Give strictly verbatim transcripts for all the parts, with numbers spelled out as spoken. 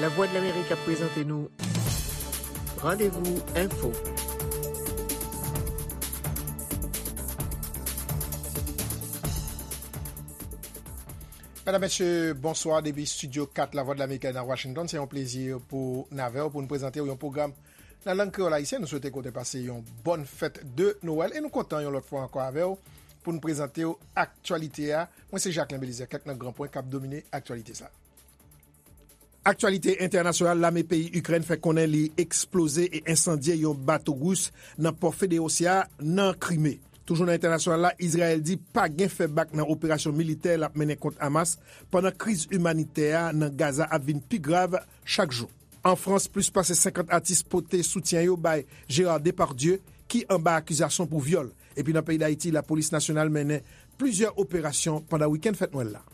Lavwadlamerik ap prezante nou Randevou Enfo. Medam, mesye, bonswa depi Estidyo kat Lavwadlamerik nan Washington. Se yon plezi pou n avè w pou n prezante w yon pwogram nan lang kreyòl ayisyen. Nou swete ke w te pase yon bòn fèt de Nwèl e nou kontan yon lòt fwa ankò avè w pou n prezante w aktyalite a. Mwen se Jacquelin Belizaire, kèk nan gran pwen k ap domine aktyalite sa a. Aktyalite entènasyonal, lame peyi Ikrèn fè konnen li eksploze e ensandye yon bato ris nan pò Feodosya nan Krime. Toujou nan entènasyonal la, Izrayèl di pa gen fè bak nan operasyon militè l ap mennen kont Hamas, pandan kriz imanitè a nan Gaza ap vin pi grav chak jou. An Frans, plis pase senkant atis pote soutyen yo bay Gérard Depardieu, ki anba akizasyon pou vyòl. Epi nan peyi Dayiti, lapolis nasyonal mennen plizyè operasyon pandan wikenn fèt Nwèl la.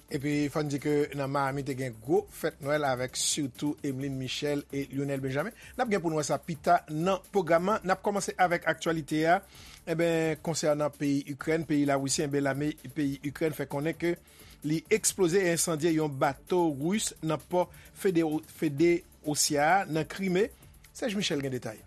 Epi fò n di ke nan Miami te gen gwo fèt Nwèl avèk sitou Emeline Michel e Lionel Benjamin. N ap gen pou n wè sa pita nan pwogram nan. N ap kòmanse avèk aktyalite a. Enben, konsènan peyi Ikrèn, peyi Larisi, enben, lame peyi Ikrèn fè konnen ke li eksploze e ensandye yon bato ris nan pò Fede-, Feodosya a nan Krime. Serge Michel gen detay.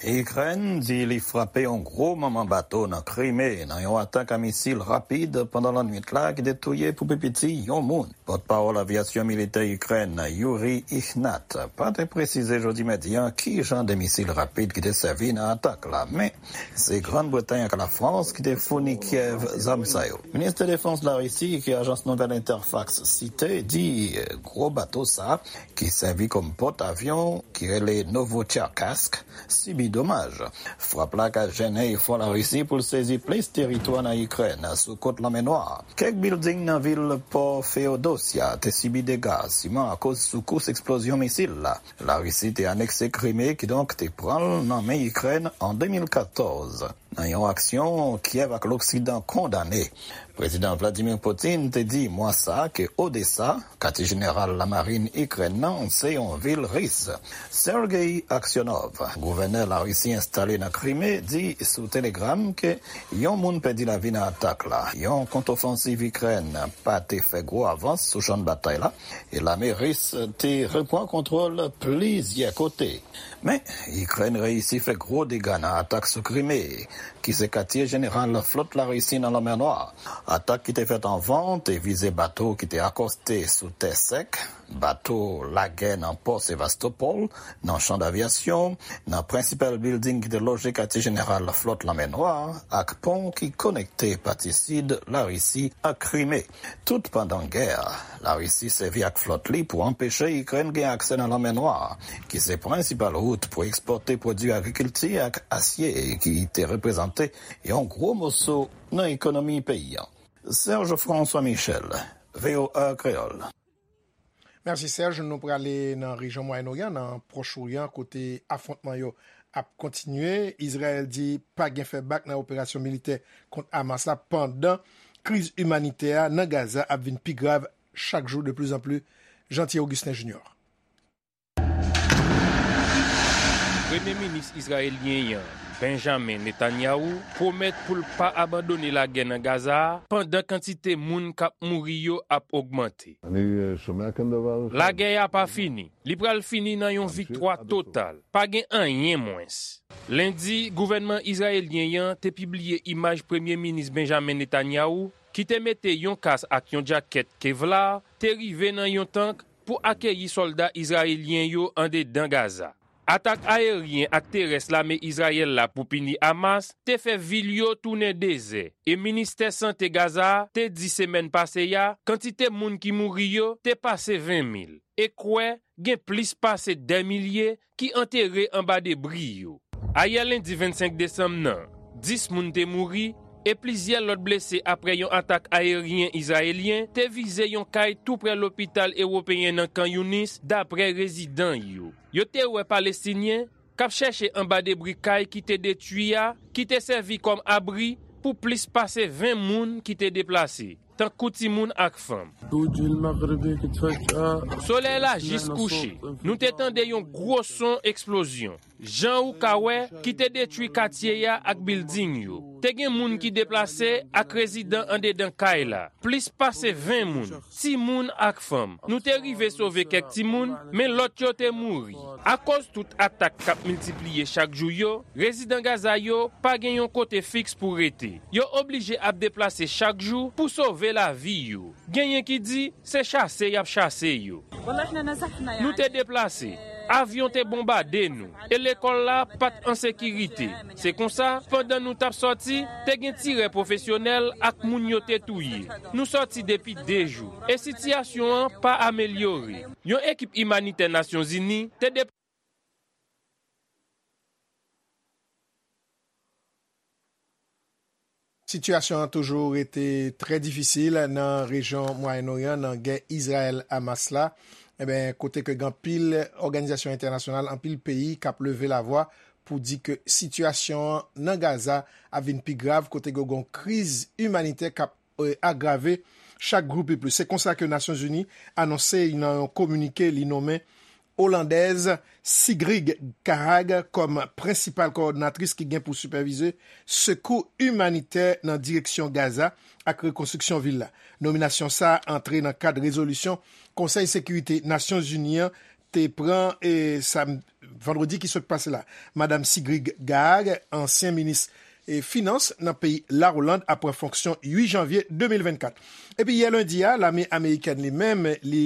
Ikrèn di li frape yon gwo manman bato nan Krime nan yon atak a misil rapid pandan lannwit la ki te touye pou pi piti yon moun. Pòtpawòl avyasyon militè Ikrèn, Yuri Ihnat, pa te presize jodi madi a ki jan de misil rapid ki te sèvi nan atak la, men se Grann Bretay ak Lafrans ki te founi Kyèv zam sa yo. Minis de Defans Larisi, ke ajans nouvèl Interfax site, di gwo bato sa ki sèvi kòm pòt avyon, ki rele Novocherkassk, sibi domaj. Frap la ka jennen efò Larisi pou l sezi plis teritwa nan Ikrèn, sou kot Lanmè Nwa. Kèk bilding nan vil pò Feodosya te sibi dega, siman akoz soukous eksplozyon misil la. Larisi te anekse Krime, kidonk te pran l nan men Ikrèn an de mil katòz. Nan yon aksyon Kyèv ak Loksidan kondane, Prezidan Vladimir Putin te di mwa sa a ke Odesa, katye jeneral lamarin Ikrèn nan, se yon vil ris. Sergei Aksyonov, gouvènè Larisi enstale nan Krime, di sou Telegram ke yon moun pèdi lavi nan atak la. Yon kontofansiv Ikrèn pa te fè gwo avans sou chann batay la, e lame ris te repran kontwòl plizyè kote. Men, Ikrèn reyisi fè gwo dega nan atak sou Krime, ki se katye jeneral flòt Larisi nan Lanmè Nwa. Atak ki te fèt anvan te vize bato ki te akòste sou tè sèk, bato lagè nan pò Sevastopol, nan chan davyasyon, nan prensipal bilding ki te loje katye jeneral flòt Lanmè Nwa, ak pon ki konekte pati sid Larisi ak Krime. Tout pandan gè a, Larisi sèvi ak flòt li pou anpeche Ikrèn gen aksè nan Lanmè Nwa, ki se prensipal wout pou ekspòte pwodui agrikilti ak asye, ki te reprezante yon gwo moso nan ekonomi peyi a. Serge François Michel, V O A Kreyòl. Mèsi, Serge. Nou prale nan rejyon Mwayen Oryan, nan Pwòch Oryan, kote afwontman yo ap kontinye. Izrayèl di pa gen fè bak nan operasyon militè kont Hamas la, pandan kriz imanitè a nan Gaza ap vin pi grav chak jou de plus en plus. Jean Thierry Augustin Junior. Premye minis izrayelyen an, Benjamin Netanyahu, pwomèt pou l pa abandone lagè nan Gaza a pandan kantite moun k ap mouri yo ap ogmante. Lagè a pa fini. Li pral fini nan yon viktwa total. Pa gen anyen mwens. Lendi, gouvènman izrayelyen an te pibliye imaj Premye Minis Benjamin Netanyahu, ki te mete yon kas ak yon djakèt Kevlar, te rive nan yon tank pou akeyi sòlda izrayelyen yo andedan Gaza. Atak ayeryen ak terès lame Izrayèl la pou pini Hamas te fè vil yo tounen dezè, e Ministè Sante Gaza a te di semèn pase a kantite moun ki mouri yo te pase ven mil, e kwè gen plis pase dè milye ki antere anba debri yo. Ayè lendi vennsenk desanm nan, dis moun te mouri e plizyè lòt blese apre yon atak ayeryen izrayelyen te vize yon kay toupre lopital ewopeyen nan Khan Younis, dapre rezidan yo. Yo te wè Palestinyen k ap chèche anba debri kay ki te detwi a, ki te sèvi kòm abri pou plis pase ven moun ki te deplase, tankou timoun ak fanm. Solèy la jis kouche. Nou te tande yon gwo son eksplozyon, jan ou ka wè, ki te detwi katye a ak bilding yo. Te gen moun ki deplase ak rezidan andedan kay la, plis pase ven moun, timoun ak fanm. Nou te rive sove kèk timoun, men lòt yo te mouri. Akoz tout atak k ap miltipliye chak jou yo, rezidan Gaza yo pa gen yon kote fiks pou rete. Yo oblije ap deplase chak jou pou sove lavi yo. Genyen ki di se chase y ap chase yo. Nou te deplase. Avyon te bonbade nou, e lekòl la pa t an sekirite. Se konsa, pandan nou t ap sòti, te gen tirè pwofesyonèl ak moun yo te touye. Nou sòti depi de jou, e sitiyasyon an pa amelyore. Yon ekip imanitè Nasyonzini te deplase. Sitiyasyon an toujou rete trè difisil nan rejyon Mwayen Oryan, nan gè Izrayèl-Hamas la, enben, kote ke gen anpil òganizasyon entènasyonal, anpil peyi k ap leve lavwa pou di ke sitiyasyon an nan Gaza ap vin pi grav, kote ke gen yon kriz imanitè k ap eh, agrave chak jou pi plis. Se konsa ke Nasyonzini anonse nan yon kominike li nonmen Olandèz Sigrid Kaag kòm prensipal kowòdinatris ki gen pou sipèvize sekou imanitè nan direksyon Gaza ak rekonstriksyon vil la. Nominasyon sa a antre nan kad rezolisyon Konsèy Sekirite Nasyonzini an te pran e sa vandredi ki sot pase la. Madanm Sigrid Kaag, ansyen minis e finans nan peyi Lawoland ap pran fonksyon uit janvye de mil vennkat. Epi yè lendi a, lame amerikèn li menm, li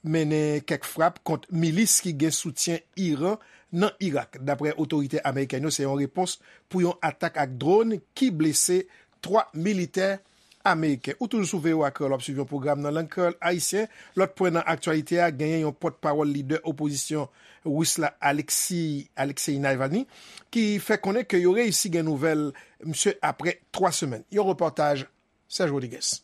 mennen kèk frap kont milis ki gen soutyen Iran nan Irak. Daprè otorite amerikèn yo, se yon repons pou yon atak ak dwòn ki blese twa militè ameriken. Ou toujou sou V O A Kreyòl, w ap swiv yon pwogram nan lang kreyòl ayisyen. Lòt pwen nan aktyalite a, genyen yon pòtpawòl lidè opozisyon ris la, Alexei, Alexei Navalny, ki fè konnen ke yo reyisi gen nouvèl misye apre twa semèn. Yon repòtaj Serge Rodriguez.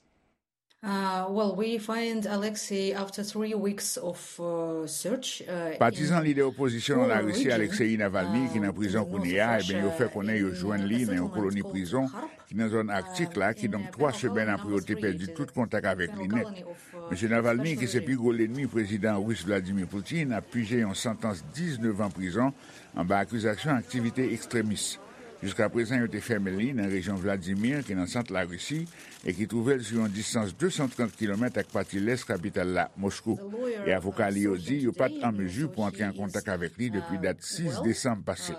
Uh, well, we find Alexei after three weeks of uh, search. Uh, Patizan lidè opozisyon nan Larisi, Alexei Navalny, ki nan prizon kounye a, ebyen yo fè konnen yo jwenn li nan yon koloni prizon ki nan zòn Aktik la, kidonk twa semèn apre yo te pèdi tout kontak avèk li nèt. Mesye Navalny, ki se pi gwo lènmi prezidan ris Vladimir Putin, ap pije yon santans diznèf an prizon anba akizasyon aktivite ekstremis. Jiskaprezan, yo te fèmen li nan rejyon Vladimir, ki nan sant Larisi, e ki twouve l sou yon distans de san trant kilomèt ak pati lès kapital la, Moskou. E avoka li yo di yo pa t an mezi pou antre an kontak avèk li depi dat sis desanm pase.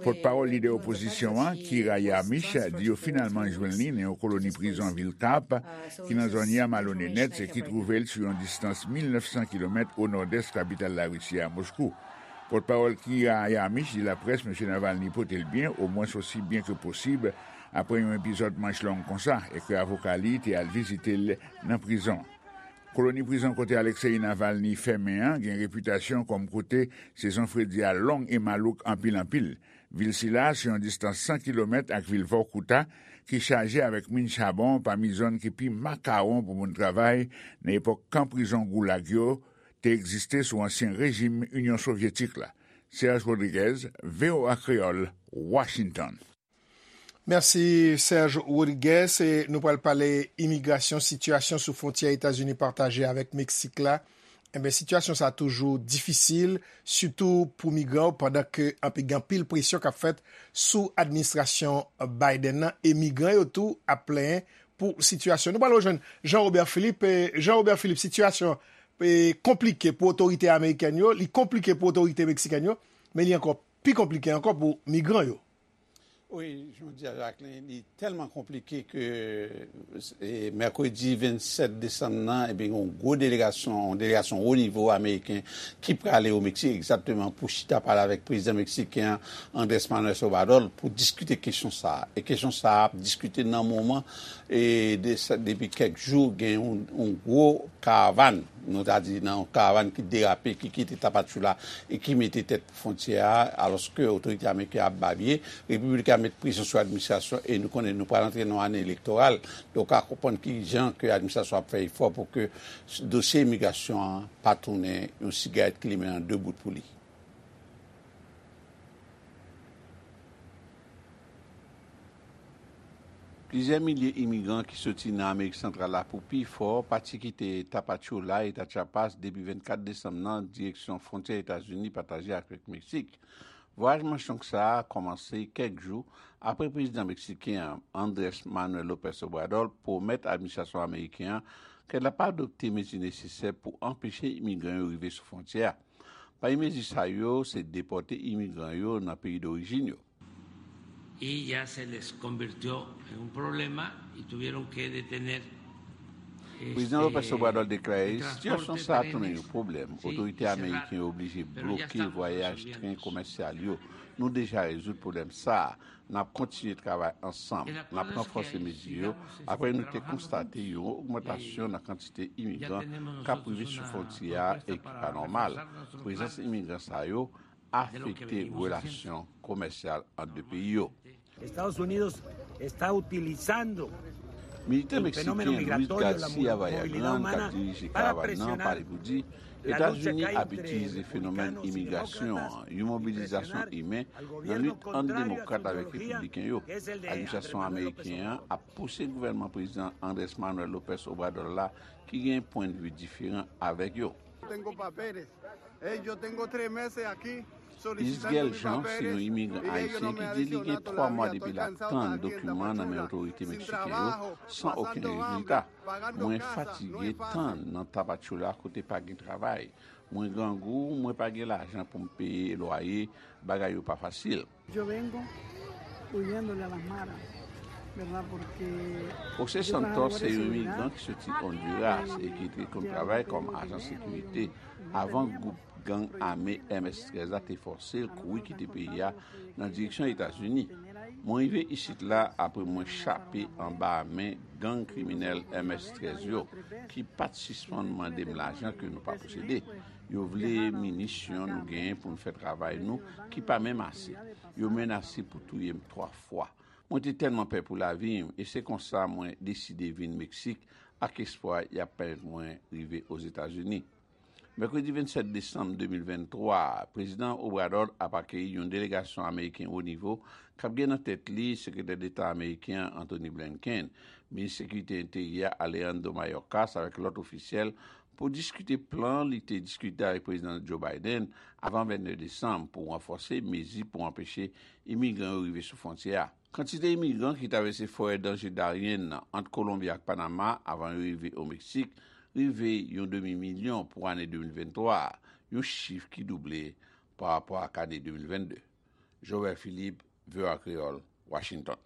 Pòtpawòl lidè opozisyon an, Kira Yarmysh, di yo finalman jwenn li nan yon koloni prizon vil Karp, ki nan zòn Yamalo Nenets e ki twouve l sou yon distans mil nèf san kilomèt o nòdès kapital Larisi a, Moskou. Pòtpawòl Kira Yarmysh di laprès Mesye Navalny pote l byen, omwens osi byen ke posib, apre yon epizòd manch long konsa, e ke avoka li te al vizite l nan prizon. Koloni prizon kote Alexei Navalny fèmen an gen repitasyon kòm kote sezon fredi a long e malouk anpil anpil. Vil sila a se yon distans san kilomèt ak vil Vorkuta, ki chaje avèk min chabon pami zòn ki pi makawon pou moun travay nan epòk kan prizon Goulag yo te egziste sou ansyen rejim Inyon Sovyetik la. Serge Rodriguez, V O A Kreyòl, Washington. Mèsi Serge Rodriguez. E nou pral pale imigrasyon, sitiyasyon sou fwontyè Etazini pataje avèk Meksik la. Enben, sitiyasyon sa a toujou difisil, sitou pou migran yo, pandan ke anpil, gen anpil presyon k ap fèt sou administrasyon Biden nan, e migran yo tou ap plenyen pou sitiyasyon. Nou pral rejwenn Jean Robert Philippe. E Jean Robert Philippe, sitiyasyon e konplike pou otorite amerikèn yo, li konplike pou otorite meksikèn yo, men li ankò pi konplike ankò pou migran yo. Wi, jodi a, Jacqueline, li tèlman konplike ke e, mèkredi vennsèt desanm nan, ebyen, yon gwo delegasyon, yon delegasyon wo nivo ameriken ki prale o Meksik egzakteman pou chita pale avèk prezidan meksiken an, Andrés Manuel Obrador, pou diskite kesyon sa a. E kesyon sa a ap diskite nan moman e de, depi kèk jou gen yon, yon gwo karavàn, nou ta di nan yon karavàn ki derape, ki kite Tapachula e ki mete tèt fwontyè a, alòske otorite ameriken ap babye. Repiblik la met presyon sou administrasyon e nou konnen nou pral antre nan yon ane elektoral. Donk, ou ka konprann ki jan ke administrasyon ap fè efò pou ke dosye imigrasyon an pa tounen yon sigarèt ki limen an de bout pou li. Plizyè milye imigran ki soti nan Amerik Santral la pou pi fò pati kite Tapachula, eta Chiapas, depi vennkat desanm nan, direksyon fwontyè Etazini pataje avèk Meksik. Vwayaj Manchonk sa a kòmanse kèk jou apre prezidan meksiken an, Andrés Manuel López Obrador, pwomèt administrasyon ameriken an ke l ap adopte mezi nesesè pou anpeche imigran yo rive sou fwontyè a. Pami mezi sa yo, se depòte imigran yo nan peyi dorijin yo. Y ya se les convirtió en un problema y tuvieron que detener. Prezidan López Obrador deklare sitiyasyon sa a tounen yon pwoblèm. Otorite ameriken yo oblije bloke vwayaj tren komèsyal yo. Nou deja rezoud pwoblèm sa a. N ap kontinye travay ansanm. N ap ranfòse mezi yo apre nou te konstate yon ogmantasyon nan kantite imigran k ap rive sou fwontyè a e ki pa nòmal. Prezans imigran sa yo afekte relasyon komèsyal ant de peyi yo. Estados Unidos está utilizando Militan meksiken Luis Garcia Vallagrán, k ap dirije karavàn nan, pale pou di Etazini ap itilize fenomèn imigrasyon an, yon mobilizasyon imen, nan lit ant demokrat avèk repibliken yo. Administrasyon ameriken an ap pouse gouvènman prezidan Andrés Manuel López Obrador la, ki gen pwennvi diferan avèk yo. Isgel Jean se yon imigran ayisyen ki di li gen twa mwa depi l ap tann dokiman nan men otorite meksiken yo san okenn rezilta. Mwen fatige tann nan Tapachula kote pa gen travay. Mwen grangou, mwen pa gen lajan pou m peye lwaye, bagay yo pa fasil. Yo vengo huyéndole a las maras, ¿verdad? Porque José Santos se yon imigran ki soti Honduras e ki te konn travay kòm ajan sekirite avan gwoup gang ame M S trèz la te fòse l kouri kite peyi a nan direksyon Etazini. Mwen rive isit la apre mwen chape anba men gang kriminèl M S trèz yo, ki pa t sispann mande m lajan ke nou pa posede. Yo vle minisyon nou genyen pou n fè travay nou ki pa menm ase. Yo menase pou touye m twa fwa. Mwen te tèlman pè pou lavi m e se konsa mwen deside vin Meksik ak espwa y ap pèmèt mwen rive Ozetazini. Mèkredi vennsèt desanm de mil venntwa, Prezidan Obrador ap akeyi yon delegasyon ameriken wo nivo k ap gen nan tèt li Sekretè Deta ameriken an Antony Blinken, Minis Sekirite Enteryè Alejandro Mayorkas avèk lòt ofisyèl pou diskite plan li te diskite avèk Prezidan Joe Biden avan vennde desanm pou ranfòse mezi pou anpeche imigran yo rive sou fwontyè a. Kantite imigran ki travèse forè danje daryen nan ant Kolonbi ak Panama avan yo rive o Meksik rive yon demi milyon pou ane de mil venntwa a, yon chif ki double pa rapò ak ane de mil vennde. Joël Philippe, V O A Kreyòl, Washington.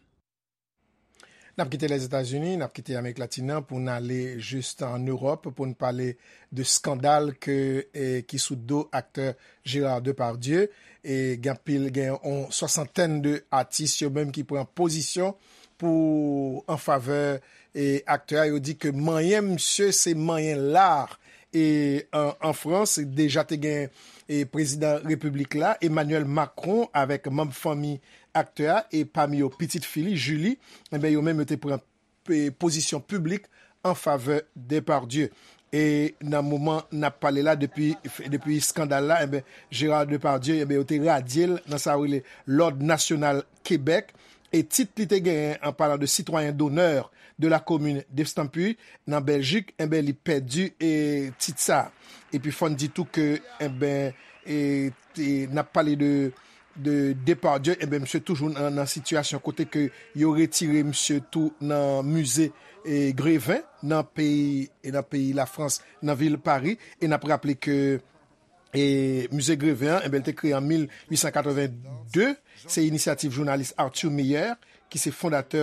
N ap kite Lèzetazini, n ap kite Amerik Latin nan pou n ale jis ann Ewòp pou n pale de skandal ke, e, ki sou do aktè Gérard Depardieu. E gen anpil, gen yon swasantèn de atis yo menm ki pran pozisyon pou an favè, e, aktè a. Yo di ke manyen misye se manyen lar e an, an Frans, deja te gen, e, prezidan repiblik la, Emmanuel Macron, avèk manm fanmi aktè a, e pami yo pitit fi li, Julie, enben, yo menm yo te pran, e, pozisyon piblik an favè Depardieu. E nan moman n ap pale la, depi, depi skandal la, enben, Gérard Depardieu, enben, yo te radye l nan sa yo rele Lòd Nasyonal Kebèk. E tit li te genyen, an palan de citoyen d'honneur de la commune d'Estampy nan Bèljik, enben, li pèdi, e, tit sa. Epi fò n di tou ke, enben, e, te, n ap pale de, de Depardieu, enben, misye toujou nan, nan sitiyasyon kote ke yo retire misye tou nan mize, e, Greven nan peyi, e nan peyi Lafrans, nan vil Pari. E n ap raple ke e mize Greven an, enben, li te kreye an mil uit san katreven de. Se inisyativ jounalis Arthur Meyer, ki se fondatè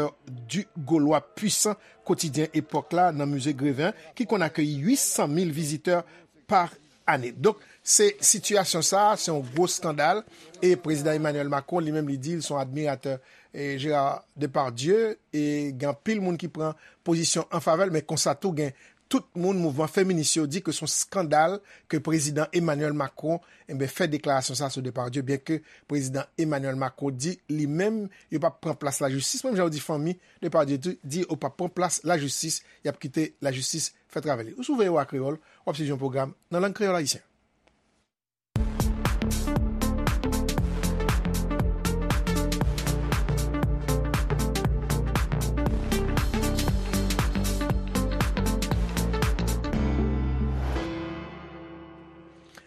Du Gaulois Puissant, kotidyen epòk la nan mize Greven an, ki konn akeyi uit san mil vizitè pa ane. Donk, se sitiyasyon sa a, se yon gwo skandal. E prezidan Emmanuel Macron, li menm, li di l se yon admiratè, e, Gérard Depardieu. E gen anpil moun ki pran pozisyon an favè l, men konsa tou gen tout moun mouvman feminis yo di ke se yon skandal ke prezidan Emmanuel Macron, enben, fè deklarasyon sa sou Depardieu, byenke prezidan Emmanuel Macron di li menm yo p ap pran plas lajistis, menm jan yo di fanmi Depardieu tou, di yo p ap pran plas lajistis, y ap kite lajistis fè travay li. Ou sou V O A Kreyòl, w ap swiv yon pwogram nan lang kreyòl ayisyen.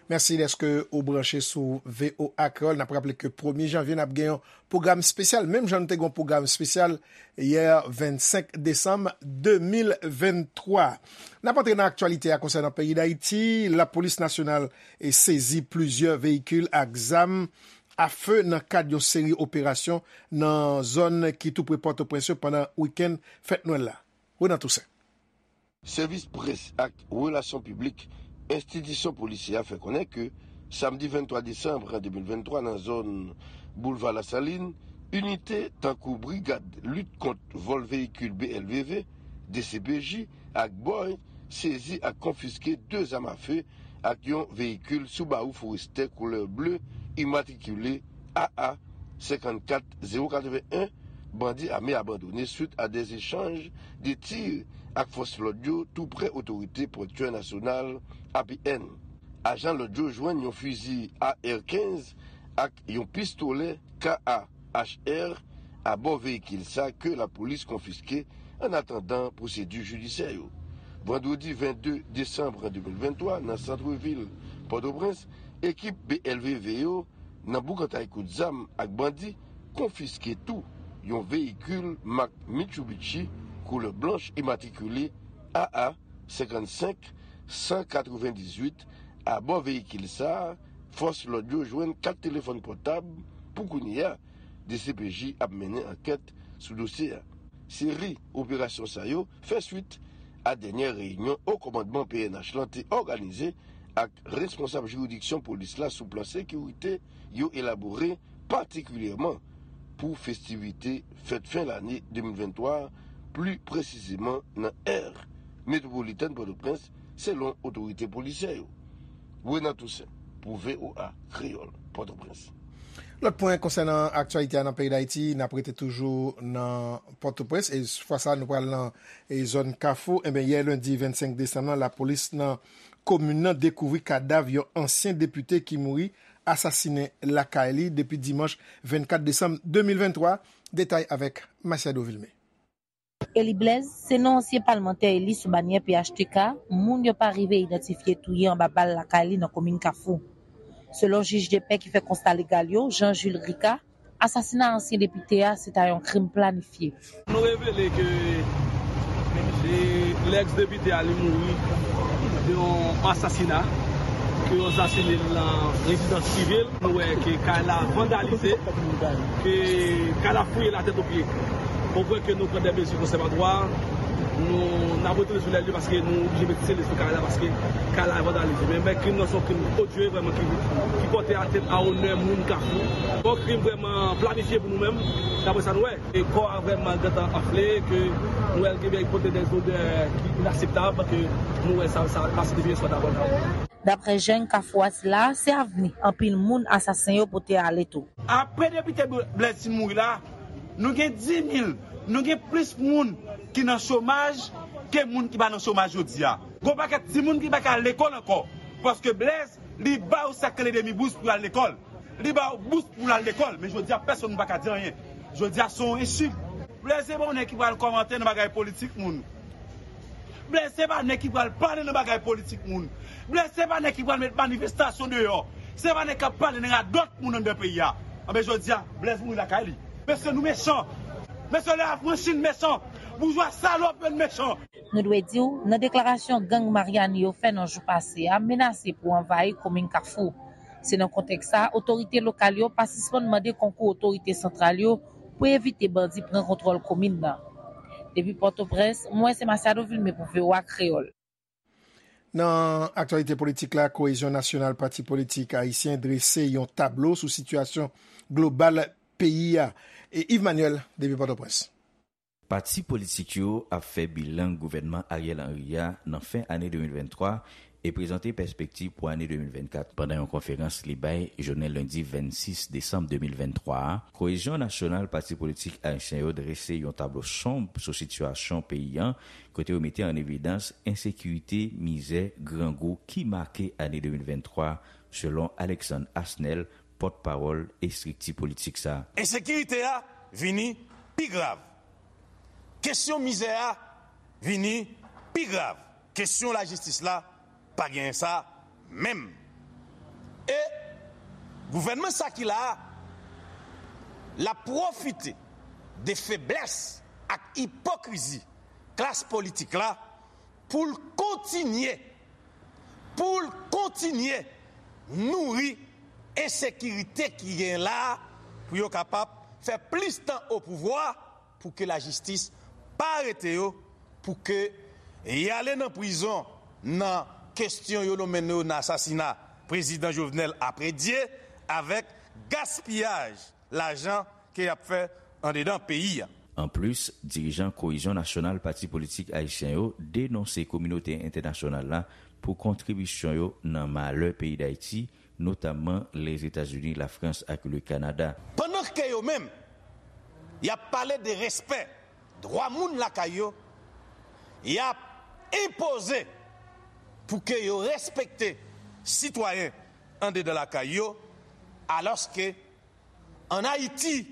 Mèsi dèske ou branche sou V O A Kreyòl. N ap raple ke premye janvye, n ap gen yon pwogram espesyal, menm jan nou te gen yon pwogram espesyal yè vennsenk desanm de mil venntwa. N ap antre nan aktyalite a konsènan peyi Dayiti. Lapolis nasyonal e sezi plizyè veyikil ak zam afe nan kad yon seri operasyon nan zòn ki tou pre Pòtoprens yo pandan wikenn fèt Nwèl la. Renan Toussaint. Sèvis près ak relasyon piblik enstitisyon polisyè a fè konnen ke samdi venntwa desanm de mil venntwa nan zòn Boulva Lasalin, inite tankou Brigad Lit Kont Vòl Veyikil B L V V, D C P J, ak bòy sezi ak konfiske de zam afe ak yon veyikil Subaru Forester koulè ble imatrikile A A senkannkat zewo katreven en, bandi ame abandone swit a de echanj de tir ak fòs lòd yo tou prè otorite pòtyè nasyonal A P N. Ajan lòd yo jwenn yon fizi A R kenz ak yon pistolè K A H R abò veyikil sa ke lapolis konfiske an atandan pwosedi jidisyè yo. Vandredi vennde desanm de mil venntwa, nan santvil Pòtoprens, ekip B L V V yo nan boukantay kout zam ak bandi, konfiske tou yon veyikil mak Mitsubishi koulè blanch imatrikile A A senkannsenk san katrevendizuit. Abò veyikil sa a, fòs lòd yo jwenn kat telefòn pòtab. Pou kounye a, D C P J ap mennen ankèt sou dosye a. Seri operasyon sa yo fè swit a dènyè reyinyon Wo Kòmandman P N H lan te òganize ak responsab jiridiksyon polis la sou plan sekirite yo elabore patikilyèman pou festivite fèt fen lane de mil venntwa, pli presizeman nan è metwopolitèn Pòtoprens, selon otorite polisyè yo. Renan Toussaint, pou V O A Kreyòl, Pòtoprens. Lòt pwen konsènan aktyalite a nan peyi Dayiti, n ap rete toujou nan Pòtoprens, e fwa sa a, nou pral nan e zòn Kafou. Enben, yè lendi vennsenk desanm nan, lapolis nan komin nan dekouvri kadav yon ansyen depite ki mouri asasinen lakay li depi dimanch vennkat desanm de mil venntwa. Detay avèk Masiado Vilmé. Eli Blaise se non ansyen palmantè eli sou banyè P H T K moun yo pa rive idantifye touye anba bal lakay li nan komin Kafou. Selon jij de pè ki fè konsta legal yo, Jean Jules Ricard, asasina ansyen depite a se ta yon krim planifye. Nou revele ke lèks depite a li mouri de yon asasina, ke yo asasine l nan rezidans prive l. Nou wè ke kay la vandalize, ke kay la fouye latèt o pye. Ou kwè ke nou pran de mezi konsèvatwa, nou n ap retounen sou lè li paske nou oblije met sele sou kay la paske kay la vandalize. Men, men krim nan se yon krim odye vrèman ki, ki pòte atènt a onè moun Kafou. Yon krim vrèman planifye pou nou menm, daprè sa nou wè. E kò a vrèman gentan anfle, ke nou wè l gen pote de zodè ki inaseptab, ke nou wè sa, sa pa siyifi yon swa dabò. Daprè jèn Kafou a sila, se avni anpil moun asasen yo pote ale tou. Apre depite Blaise fin mouri la, nou gen dis mil, nou gen plis moun ki nan chomaj ke moun ki pa nan chomaj jodi a. Gon pakèt timoun ki pa ka al lekòl ankò, paske Blaise, li ba yo sa k rele demi bous pou y al lekòl. Li ba yo bous pou l al lekòl, men jodi a pèsonn pa ka di anyen. Jodi a se yon echik. Blaise se pa yon nèg ki pral kòmante nan bagay politik moun. Blaise se pa nèg ki pral pale nan bagay politik moun. Blaise se pa nèg ki pral met manifestasyon deyò. Se pa nèg k ap pale nan radòt moun anndan peyi a. Anben jodi a, Blaise mouri lakay li. Mesye nou mechan. Mesye lè afranchi n mechan. Boujwa salòp yo n mechan. Nou dwe di w, nan deklarasyon gang Maryani yo fè nan jou pase a menase pou anvayi komin Kafou. Se nan kontèks sa a, otorite lokal yo pa sispann mande konkou otorite santral yo pou evite bandi pran kontwòl komin nan. Depi Pòtoprens, mwen se Masiado Vilmé pou V O A Kreyòl. Nan aktyalite politik la, Kohezyon Nasyonal, pati politik ayisyen, drese yon tablo sou sitiyasyon global peyi a. E Yves Manuel, depi Pòtoprens. Pati politik yo ap fè bilan gouvènman Ariel Henry a nan fen ane de mil venntwa e prezante pèspektiv pou ane de mil vennkat. Pandan yon konferans li bay jounen lendi vennsis desanm de mil venntwa a, Kohezyon Nasyonal, pati politik ayisyen yo drese yon tablo sonb sou sitiyasyon peyi a, kote yo mete an evidans ensekirite, mizè, grangou ki make ane de mil venntwa, selon Alexandre Asnel, pòtpawòl estrikti politik sa a. Ensekirite a vini pi grav. Kesyon mizè a vini pi grav. Kesyon lajistis la pa genyen sa menm. Gouvènman sa ki la a, l ap pwofite de feblès ak ipokrizi klas politik la pou l kontinye, pou l kontinye nouri ensekirite ki gen la a, pou yo kapab fè plis tan o pouvwa, pou ke lajistis pa arete yo, pou ke y ale nan prizon nan kesyon yo nonmen yo nan asasina prezidan Jovenel apre Dye, avèk gaspiyaj lajan ke y ap fè andedan peyi a. Anplis, dirijan Koyizyon Nasyonal pati politik ayisyen yo denonse kominote entènasyonal la pou kontribisyon yo nan malè peyi Dayiti, notamman Lèzetazini, Lafrans ak le Kanada. Pandan ke yo menm, y ap pale de respè dwa moun lakay yo, y ap enpoze pou ke yo respekte sitwayen andedan lakay yo, alòske ann Ayiti,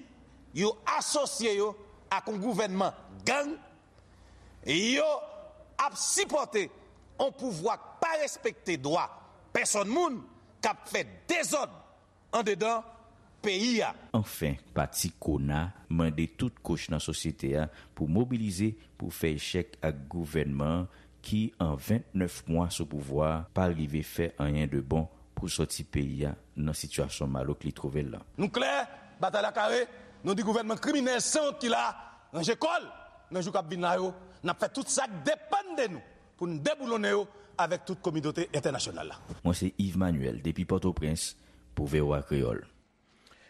yo asosye yo ak yon gouvènman gang, yo ap sipòte yon pouvwa k pa respekte dwa pèsòn moun, k ap fè dezòd andedan peyi a. Anfen, pati Kona mande tout kouch nan sosyete a pou mobilize pou fè echèk ak gouvènman an ki, an vennèf mwa sou pouvwa a, pa rive fè anyen de bon pou sòti peyi a nan sitiyasyon malouk li twouve l lan. Nou klè, batay la kare, nou di gouvènman kriminèl sanwont ki la a, ranje kò l. Nan jou k ap vin la yo, n ap fè tout sa k depann de nou pou n deboulonnen yo avèk tout kominote entènasyonal la. Mwen se Yves Manuel depi Pòtoprens pou V O A Kreyòl.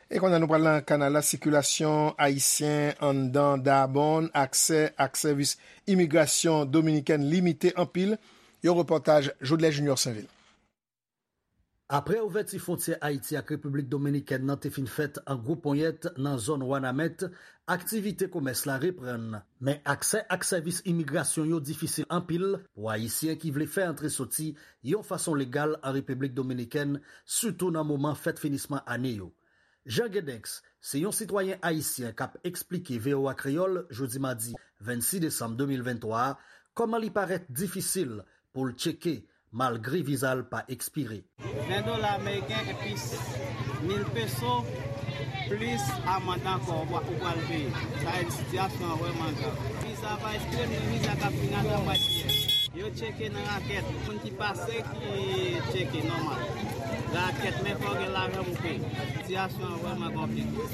E kounye a nou pral nan kanal la, sikilasyon ayisyen anndan Darbonne, aksè ak sèvis imigrasyon dominikèn limite anpil. Yon repòtaj Jodlè Junior Sainvil. Apre ouvèti fwontyè Ayiti ak Repiblik Dominikèn nan te fin fèt an gwo ponyèt nan zòn Wanament, aktivite komès la reprann. Men aksè ak sèvis imigrasyon yo difisil anpil pou Ayisyen ki vle fè antre soti yon fason legal an Repiblik Dominikèn, sitou nan moman fèt finisman ane yo. Jean Gedenx se yon sitwayen ayisyen k ap eksplike V O A Kreyòl jodi madi vennsis desanm de mil venntwa a kòman li parèt difisil pou l tcheke malgre viza l pa ekspire. Ven dola ameriken epi mil peso, plis amann ankò ou pral peye. Sa vle di sitiyasyon an vrèman grav. Viza pa ekspire, men viza k ap vin atò mwa jiyè. Yo tcheke nan rakèt. Moun ki pase ki tcheke nòmal. Rakèt, men fò w gen lajan pou peye. Sitiyasyon an vrèman konplike.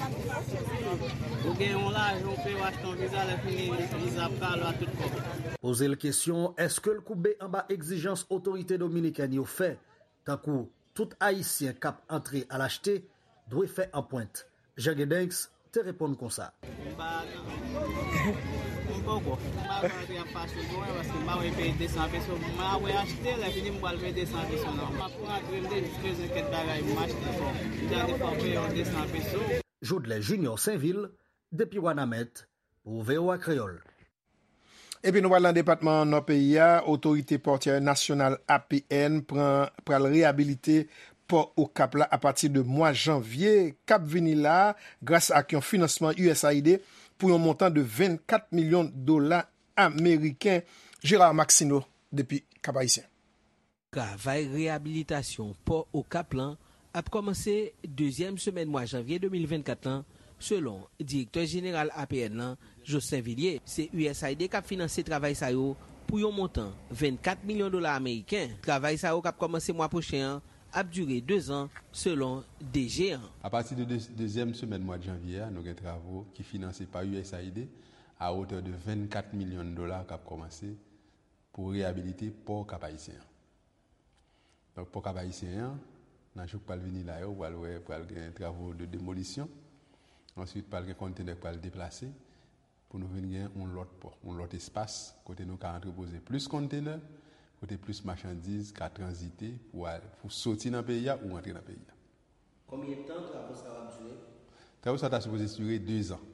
Ou gen yon lajan ou peye, w achte yon viza, lè fini viza ap kale w a tout kòb. Poze l kesyon, èske l koube anba egzijans otorite dominikèn yo fè, tankou tout Ayisyen k ap antre al achte dwe fè anprent? Jean Gedenx te reponn konsa. M pa, m poko. M pa kwè antre ap fasil pou mwen, paske m pa wè peye de san peso. M pa wè achte, lè fini m pral peye de san peso nan. M ap rantre, m te jis bezwen kèk bagay pou m achte. Bon, m te antre fò peye yon de san peso. Jodlè Junior Sainvil, depi Wanament, pou V O A Kreyòl. Epi nou pral nan depatman Nò peyi a, Otorite Pòtyè Nasyonal, A P N, pran, pral reyabilite pò Okap la apati de mwa janvye k ap vini la a, gras ak yon finansman U S A I D pou yon montan de vennkat milyon dola ameriken. Gérard Maxineau, depi Kap Ayisyen. Travay reyabilitasyon pò Okap lan ap kòmanse dezyèm semèn mwa janvye de mil vennkat lan, selon Direktè Jeneral A P N lan, Jocelyn Villiers. Se U S A I D k ap finanse travay sa yo pou yon montan vennkat milyon dola ameriken. Travay sa yo k ap kòmanse mwa pwochen an ap dire dezan, selon D G an. Apati de de-, dezyèm semèn mwa janvye a, nou gen travo ki finanse pa U S A I D a wotè de vennkat milyon dola k ap kòmanse pou reyabilite pò Kap Ayisyen an. Donk, pò Kap Ayisyen an, nan jou k pral vini la yo, pral wè, pral gen travo de demolisyon. Answit, pral gen konntenè k pral deplase pou nou vin gen yon lòt pò, yon lòt espas kote nou ka antrepoze plis konntenè, kote plis machandiz ka tranzite pou al, pou soti nan peyi a ou antre nan peyi a. Konbyen tan travo sa yo ap dire? Travo sa yo ta sipoze dire dezan.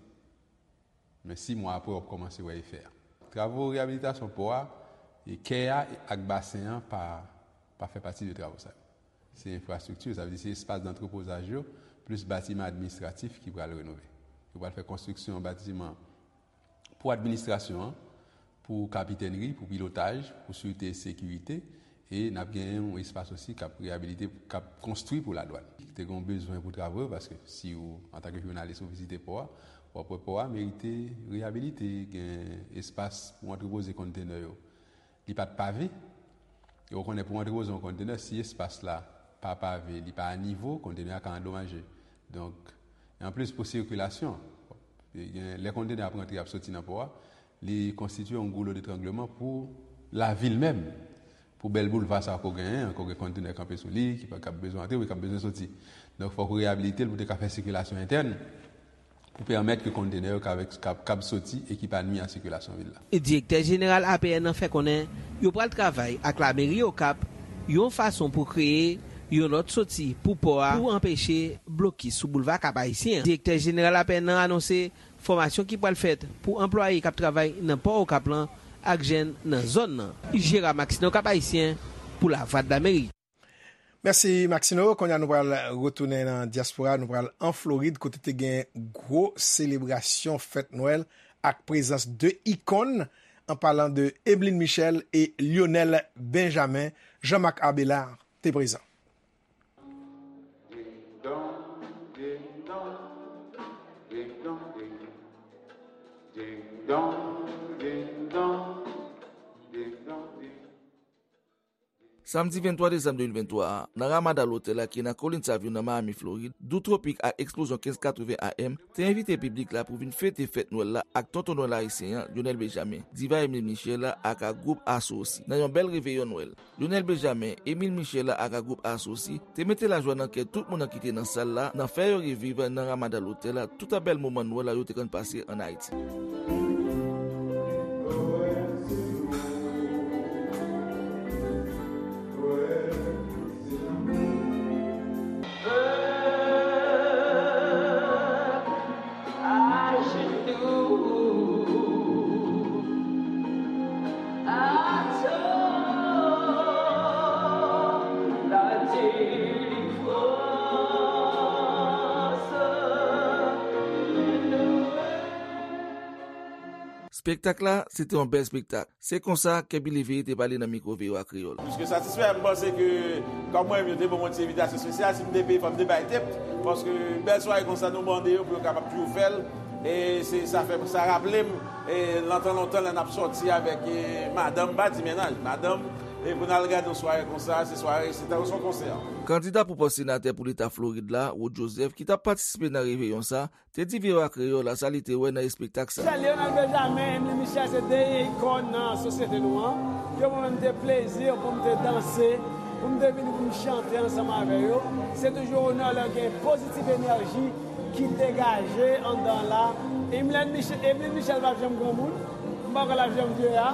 Men sis mwa apre, w ap kòmanse wè efè a. Travo reyabilitasyon pò a, e kè a ak basen an pa, pa fè pati de travo sa yo. Se enfrastrikti, sa vle di se espas dantrepozaj yo, plis batiman administratif ki pral renove. Yo pral fè konstriksyon batiman pou administrasyon an, pou kapitènri, pou pilotaj, pou sirte e sekirite, E n ap gen yon espas osi k ap reyabilite, k ap konstwi pou ladwàn. Te gen yon bezwen pou travay, paske si w, antanke jounalis, ou vizite pò a, w ap wè pò a merite reyabilite, gen espas pou antrepoze kontenè yo. Li pa t pave, e w konnen pou antrepoze yon kontenè, si espas la pa pave, li pa a nivo, kontenè a ka andomaje. Donk, e anplis pou sikilasyon, e gen, lè kontenè ap rantre, ap soti nan pò a, li konstitye yon goulo detrangleman pou lavil menm, pou bèl boulva sa a ke w genyen an, ke w gen kontenè kanpe sou li, ki pa, k ap bezwen antre, ki ap bezwen soti. Donk, fòk ou reyabilite l pou te ka fè sikilasyon entèn, pou pèmèt ke kontenè yo kab, kab, kab soti e ki pa nwi a sikilasyon vil la. Direktè jeneral A P N nan fè konnen yo pral travay ak lameri Okap yon fason pou kreye yon lòt soti pou pò a pou anpeche blokis sou boulva Kap Ayisyen an. Direktè jeneral A P N nan anonse fòmasyon ki pral fèt pou anplwaye k ap travay nan pò Okap lan ak jèn nan zòn nan. Jera Maxineau, Kap Ayisyen, pou Lavwadlamerik. Mèsi, Maxino. Kounye a, nou pral retounen nan dyaspora. Nou pral an Florid, kote te gen gwo selebrasyon fèt Nwèl ak prezans de ikòn, an palan de Emeline Michel e Lionel Benjamin. Jean-Marc Abélard te prezan. Samdi venntwa desanm de mil venntwa a, nan Ramada Lotèl la ki nan Kolin Savyo nan Miami, Florid, Dou Tropik ak Eksplozyon kenz katreven A M te envite piblik la pou vin fete fèt Nwèl la ak Tonton Nwèl ayisyen an, Lionel Benjamin, diva Emeline Michel la ak ak gwoup Asosi, nan yon bèl reveyon Nwèl. Lionel Benjamin, Emeline Michel la ak ak gwoup Asosi te mete lajwa nan kè tout moun nan ki te nan sal la, nan fè yo reviv nan Ramada Lotèl la tout bèl moman Nwèl la yo te konn pase ann Ayiti. Spektak la, se te yon bèl spektak. Se konsa, Kèbi Leveye te pale nan mikwo V O A Kreyòl. Pliske satisfè, m panse ke, kòm mwen menm, yo te ban mwen ti envitasyon espesyal, si m te peye, fò m te bay tip, paske bèl sware konsa, nou mande yo pou yo kapab toujou fè l, e se, sa fè, sa raple m, e, lontan, lontan, lè n ap sòti avèk, e, madanm, m pa di mennaj, madanm, e pou n al gade yon sware konsa, se sware, se tankou se yon konsè. Kandida pou pòs senatè pou leta Florid la, Rod Joseph, ki t ap patisipe nan reveyon sa, te di V O A Kreyòl la sa li te wè nan espektak sa. Sè Lionel Benjamin, Emeline Michel se de ikòn nan sosyete nou an. Yo ban mwen te plezi pou m te danse, pou m te vini pou m chante ansanm avè yo. Se toujou onè lè gen pozitiv enèji ki degaje anndan la. Emeline Michel, Emeline Michel p ap janm granmoun. M pa kwè l ap janm vye a.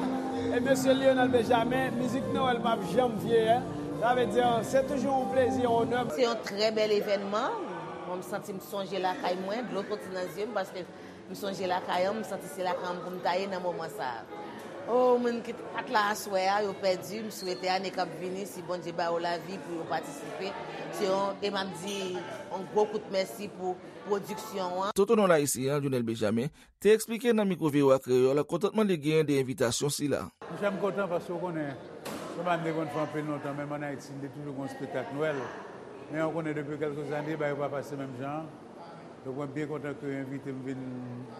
E mesye Lionel Benjamin, mizik Nwèl p ap janm vye a. Sa vle di, se toujou yon plezi, yon onè. Se yon trè bèl evènman. Mwen, m santi m sonje lakay mwen, dlo soti nan zye m, paske m sonje lakay an, m santi se lakay an pou m ta ye nan moman sa a. O, moun ki t-, pa t la aswè a, yo pèdi, m swete ane k ap vini, si Bondye ba yo lavi pou yo patisipe. Se yon, e m ap di, yon gwo kout mèsi pou pwodiksyon an. Tonton Nwèl ayisyen an, Lionel Benjamin, te eksplike nan mikwo V O A Kreyòl kontantman li genyen de envitasyon sila. Monchè, m kontan paske w konnen, se pa m te konn fè anpil lontan, menm ann Ayiti, m te toujou gen yon espektak Nwèl. Men w konnen, depi kèlke zane, bagay yo pa pase menm jan an. Donk, mwen byen kontan ke yo envite m vin,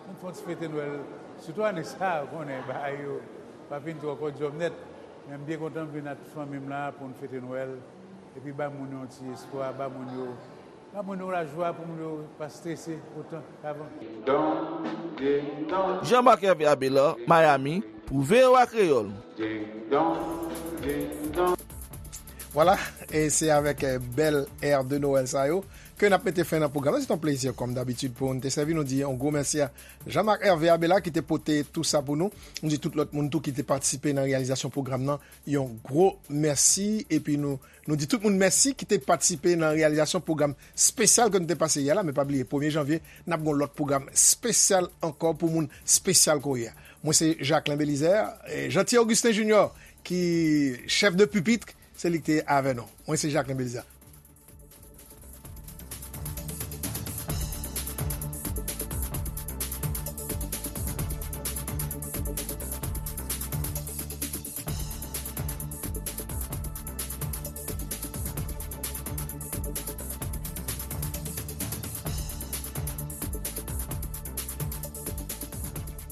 vin fè yon ti fete Nwèl. Sitou ane sa a, w konnen, bagay yo pa fin twò kòdyòm nèt. Men m byen kontan m vin ak fanmi m la pou n fete Nwèl. Epi ba moun yo yon ti espwa, ba moun yo Ba moun yo lajwa pou moun yo pa strese otan k avan. Jean-Marc Hervé Abélard, Miami, pou V O A Kreyòl. Vwala, e se avèk, eh, bèl è de Noël sa yo ke n ap mete fen nan pwogram nan. Se yon plezi, kòm dabitid, pou n te sèvi nou di yon gwo mèsi a Jean-Marc Hervé Abélard ki te pote tou sa pou nou. Nou di tout lòt moun tou ki te patisipe nan reyalizasyon pwogram nan yon gwo mèsi. Epi nou Nou di tout moun mèsi ki te patisipe nan reyalizasyon pwogram espesyal ke nou te pase yè la, men pa bliye, premye janvye, n ap gen yon lòt pwogram espesyal ankò pou moun espesyal ke w ye a. Mwen se Jacquelin Belizaire, eh, Jeanty Augustin Junior ki chèf de pipit, se li ki te avè nou. Mwen se Jacquelin Belizaire.